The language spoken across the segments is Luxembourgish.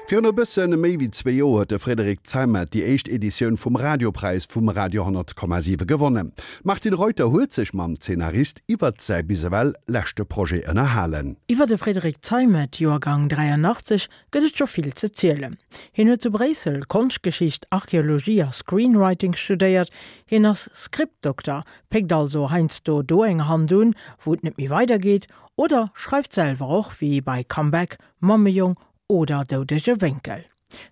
Virun e bësse méi wéi zwee Joer huet de Frédéric Zeimet déi éischt Editioun vum Radiopräis vum Radio 100,7 gewonnen. D'Martine Reuter huet sech mam Zeenarist iwwert säi bis ewell leschte Projet ënnerhalen. Iwwer de Frédéric Zeimet, Joergang 83, gëtt et scho vill ze zielen. Hien huet zu Bréissel Konschtgeschicht, Archeologie a Screenwriting studéiert. Hien ass Scriptdokter, péckt also heiansdo do eng Hand un, wou et net méi weidergeet, oder schreift selwer och, wéi bei Comeback, Mammejong oder Doudege Wénkel.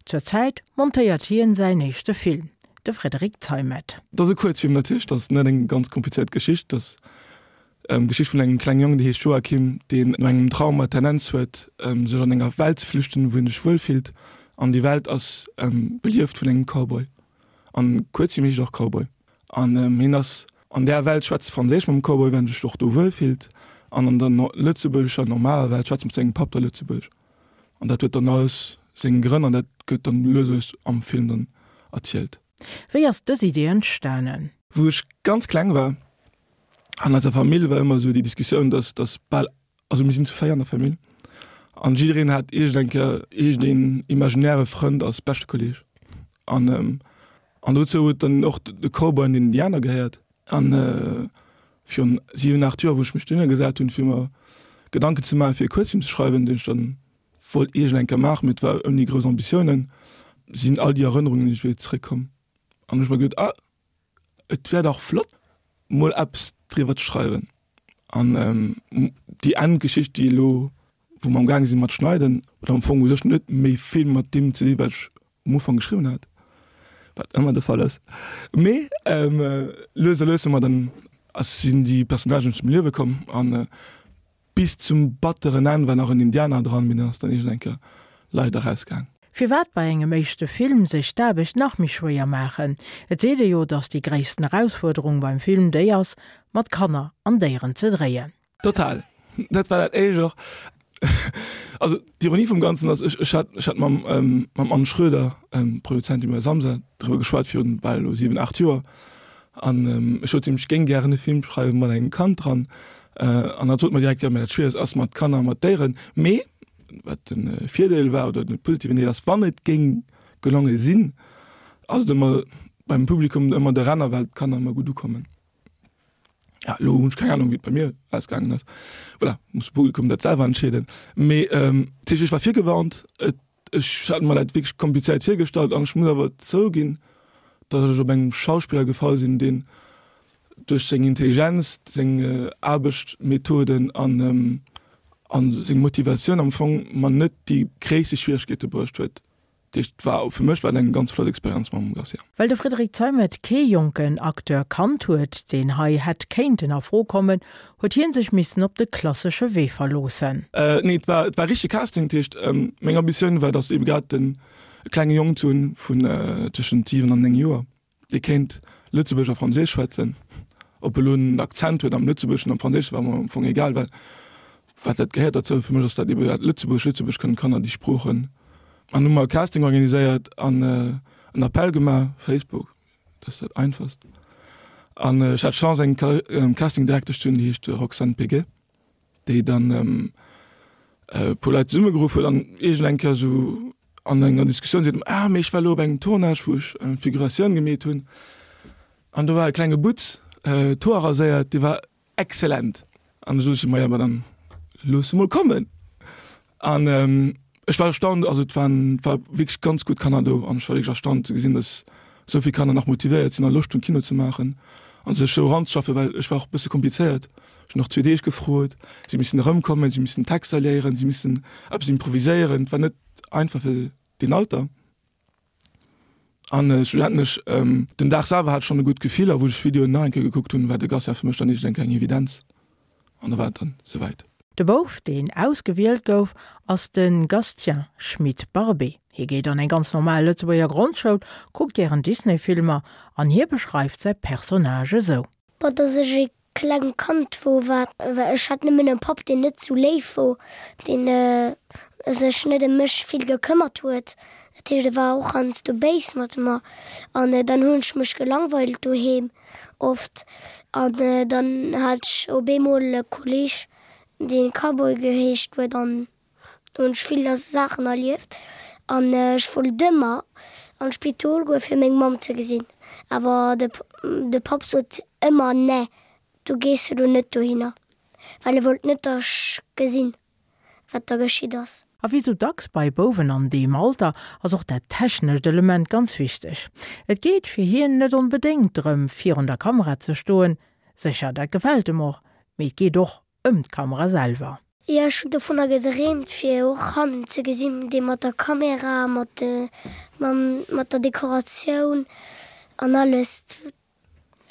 Zur Zäit montéiert hien säin éischte Film, de Frédéric Zeimet. Et ass e Kuerzfilm natierlech, et ass net eng ganz komplizéiert Geschicht. Et ass d'Geschicht vun engem klenge Jong, dee heescht Joachim, deen no engem Trauma d'Tendenz huet, sech an enger Welt ze flüchten, wou hien sech wuel fillt. An déi Welt ass belieft vun engem Cowboy. An Kuerzfilm heescht och Cowboy. An hien ass an där Welt, schwätzt Franséisch mam Cowboy, well en sech och do wuel fillt. An an der lëtzebuergescher normaler Welt schwätzt mat sengem Papp da Lëtzebuergesch. An dat huet dann alles seng Grënn an dat gëtt dann lues a lues am Film dann erzielt. Wéi ass dës Idee entstanen? Wou ech ganz kleng war, an eiser Famill war ëmmer esou déi Diskussioun, dass dass bal, also mir sinn zu 4 an der Famill, an jiddereen hat iergend eng Kéier iergendeen imaginäre Frënd als beschte Kolleeg. An an dozou huet dann och de Cowboy an den Indianer gehéiert. An virun 7, 8 Joer, wou ech mech dohinner gesat hunn, fir mer Gedanken ze maachen, fir e Kuerzfilm ze schreiwen, deen ech dann wollt iergend eng Kéier maachen, mee et war ouni grouss Ambitiounen, sinn all déi Erënnerungen iergendwéi zeréckkomm. An hunn ech mer geduet, ah, et wär dach flott, mol eppes driwwer ze schreiwen. An déi Endgeschicht, déi elo, wou mer am gaange sinn mat schneiden, huet am Fong u sech net méi vill mat deem ze dinn, wat ech um Ufank geschriwwen hat, wat ëmmer de Fall ass. Mee lues a lues hu mer dann, ass, sinn déi Personnagen zum Liewe komm an bis zum batteren Enn war nach en Indianer dran, mee deen ass dann iergend eng Kéier leider rausgaang. Firwat bei engem éischte Film sech d'Aarbecht nach méi schwéier maachen? Et seet ee jo, datt déi gréissten Erausfuerderung beim Film déi ass, mat Kanner an Déieren ze dréien. Total. Dat war dat éischt och. Also d'Ironie vum Ganzen ass, ech, ech hat, ech hat mam, ähm, mam Anne Schröder, ähm, Produzentin bei Samsa, driwwer geschwat virun bal elo 7, 8 Joer. An ähm, ech sot him, ech géing gären e Film schreiwe mat engem Kand dran. Äh, an hatt sot mer direkt, jo, mä dat Schwieregst ass mat Kanner a mat Déieren. Mee, wat de Virdeel war oder de positiven Deel ass, wann et géing gelonge sinn, ass et ëmmer beim Publikum ëmmer de Renner, well d'Kanner ëmmer gutt ukommen. Ja, elo hunn ech keng Ahnung, wéi et bei mir ausgaangen ass. Voilà, muss de Publikum dat selwer entscheeden. Mee ähm, dat heescht, ech war virgewarnt, et, ech hat mer dat wierklech komplizéiert virgestallt an ech muss awer zouginn, datt ech op engem Schauspiller gefall sinn, deen duerch seng Intelligenz, seng Aarbechtmethoden an, ähm, an seng Motivatioun am Fong mer net déi gréisste Schwieregkeete bruecht huet. Dat heescht, war, fir mech war et eng ganz flott Experienz mam Garcia. Well de Frédéric Zeimet kee jonken Acteur kannt huet, deen hei hätt kéinten a Fro kommen, huet hien sech missen op de klassesche Wee verloossen. Nee, et war, et war richtege Casting. Dat heescht, meng Ambitioun war, datt ebe grad den e klenge Jong ze hunn vun tëschent 7 an 9 Joer, Dee kéint Lëtzebuergesch a Franséisch schwätzen. Ob elo en Akzent huet am Lëtzebuergeschen, am Franséischen, war mer am Fong egal, well wat dat gehéiert derzou. Fir mech ass dat ebe dat Lëtzebuergesch, Lëtzebuergesch kënnen d'Kanner déi Sproochen. An hu mer e Casting organiséiert an en Appell gemaach, Facebook, dat ass dat einfachst. An ech hat d'Chance eng Castingdirektesch ze hunn, déi heescht Roxane Peguet. déi dann e puer Leit zesummegeruff huet an iergend eng Kéier esou an enger Diskussioun seet, ah mee ech war elo op engem Tournage wou ech eng Figuratioun gemeet hunn an do war e klenge Butz, d'Hoer raséiert, dee war exzellent. An du sot ech, maja ma dann looss e mol kommen. An ech war erstaunt, also et waren, et war wierklech ganz gutt Kanner do an ech war wierklech erstaunt ze gesinn, datt esou vill Kanner nach motivéiert sinn a Loscht hunn Kino ze maachen a sech esou eranzeschaffen, well ech war och e bësse komplizéiert. Ech hunn och zwee Deeg gefrot, si missen erëmkommen, si missen Texter léieren, si missen eppes improviséieren, et war net einfach fir deen Alter. An schlussendlech, den Dag selwer hat ech schonn e gutt Gefill a wou ech d'Videoen nach eng Kéier gekuckt hunn, war de Garcia fir mech dann iergendeng eng Evidenz an da war et dann souwäit. De Bouf, deen ausgewielt gouf, ass de Gastien Schmit-Barbé. Hie geet an eng ganz normal Lëtzebuerger Grondschoul, kuckt gären Disney-Filmer an hie beschreift säi Personnage esou. Bon, dass ech e klengt Kand wor, war ech hat nëmmen e Papp deen net sou léif wor, deen sech net ëm mech vill gekëmmert huet, dat heescht e war och heiansdo béis mat mer an dann hunn ech mech gelangweilt doheem oft an dann hat ech op eemol e Kolleg deen Cowboy geheescht huet an Do hunn ech vill Saachen erlieft. An ech wollt ëmmer an d'Spidol goe fir meng Mamm ze gesinn, awer de de Papp sot ëmmer, Nee, du gees elo net dohinner, well e wollt net, datt ech gesinn, wat da geschitt ass. A wéi sou dacks bei Bouwen an deem Alter ass och dat technescht Element ganz wichteg. Et geet fir hien net onbedéngt drëm, virun der Kamera ze stoen, sécher dat gefält em och, mee et geet och ëm d'Kamera selwer. Jo, ech hunn dovunner gedreemt fir och hannen ze gesinn, dee mat der Kamera, mat mat der Dekoratioun an alles.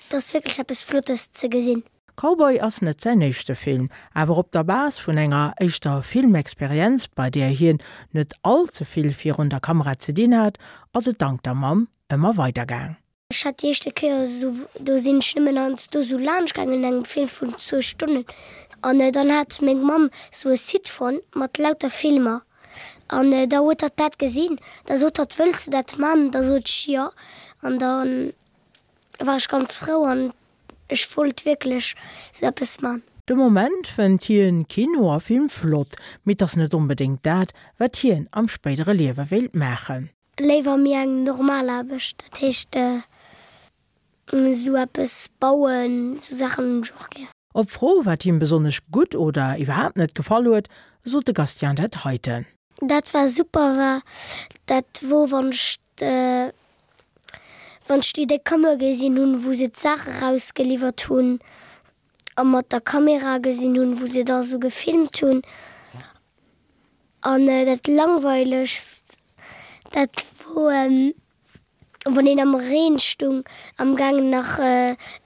Et ass wierklech eppes Flottes ze gesinn. Cowboy ass net säin éischte Film, awer op der Base vun enger éischter Filmexperienz, bei där hien net all ze vill virun der Kamera ze dinn hat, ass et dank der Mamm ëmmer weider gaang. Ech hat déi éischte Kéier esou, do sinn ech nëmmen heiansdo esou laanscht gaangen an engem Film vun zwou Stonnen an dann hat meng Mamm esou e Site fonnt mat lauter Filmer an da huet hatt dat gesinn, da sot hatt, wëlls de dat man? Da sot ech jo an da war ech ganz frou an ech wollt wierklech esou eppes man. De Moment fënnt hien Kino a Film flott, mee 't ass net onbedéngt dat, wat hien am spéidere Liewe wéilt maachen. Léiwer méi eng normal Aarbecht, dat heescht esou eppes bauen, esou Saachen hunn ech och gär. Op d'Fro, wat him besonnesch gutt oder iwwerhaapt net gefall huet, sot de Gastien dat heiten. Dat war super war, dat wor wann ech wann ech déi déck Kammer gesinn hunn, wou se d'Saache rausgeliwwert hunn a mat der Kamera gesinn hunn, wou se da sou gefilmt hunn. An dat langweilegst, dat wor wann een am Reen stung, am gaangen nach,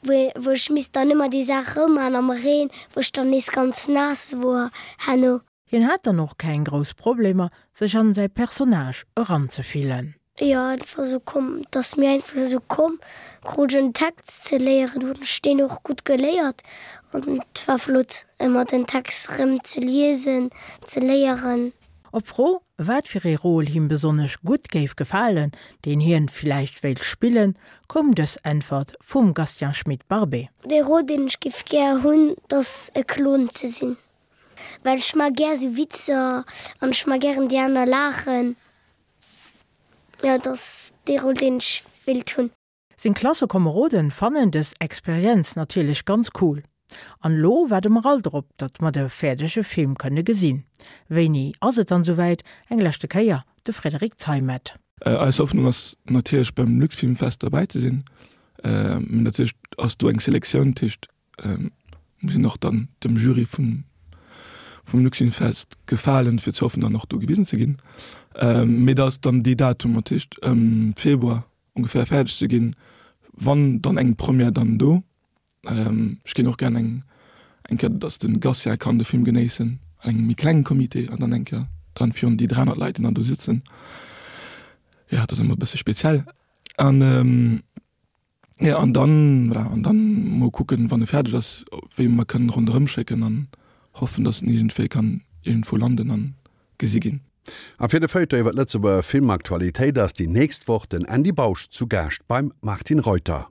wou ech misst dann ëmmer déi Saach rëmman am Reen, wou ech dann nees ganz naass wor herno. Hien hat dann och keng grouss Problemer, sech an säi Personnage eranzefillen. Jo einfach esou komm, et ass mir einfach esou komm, krut ech en Text ze léieren, hunn ech deen och gutt geléiert an et war flott ëmmer den Text rëm ze liesen, ze léieren. Op d'Fro, wat fir ee Rôle him besonnesch gutt géif gefalen, deen hien villäicht wéilt spillen, koum dës Äntwert vum Gastien Schmit-Barbé. Dee Rôle deen ech géif gär hunn, 't ass e Klon ze sinn, well ech maa gär sou Witzer an ech maa gären déi aner laachen. Jo, et ass dee Rôle, deen ech wéilt hunn. Seng Klassekomeroden fannen dës Experienz natierlech ganz cool. An elo waarde mer all drop, datt mer de fäerdege Film kënne gesinn. Wéini ass et dann souwäit? Eng leschte Kéier de Frédéric Zeimet. Eis Hoffnung ass natierlech beim Luxfilmfest derbäi ze sinn. Mee natierlech ass do eng Selektioun, dat heescht muss een och dann dem Jury vum vum Luxinfest gefalen, fir ze hoffen dann och do gewisen ze ginn. Mee dat ass dann dee Datum, dat heescht ëm Februar ongeféier fäerdeg ze ginn, wann dann eng Première dann do. Ech géing och gären eng eng Kéier, datt de Gatien kann de Film genéissen an engem méi klengen Comité an dann eng Kéier dann virun déi 300 Leit, déi dann do sitzen. Jo, dat ass ëmmer e bësse speziell. An Jo, an dann, voilà, an dann mol kucken, wann e fäerdeg ass, wéi mer kënnen ronderëm schécken an hoffen, dass en iergendwéi kann iergendwou landen an gesi ginn. A fir de Feuilleton iwwer d'Lëtzebuerger Filmaktualitéit ass déi nächst Woch den Andy Bausch zu Gaascht beim Martine Reuter.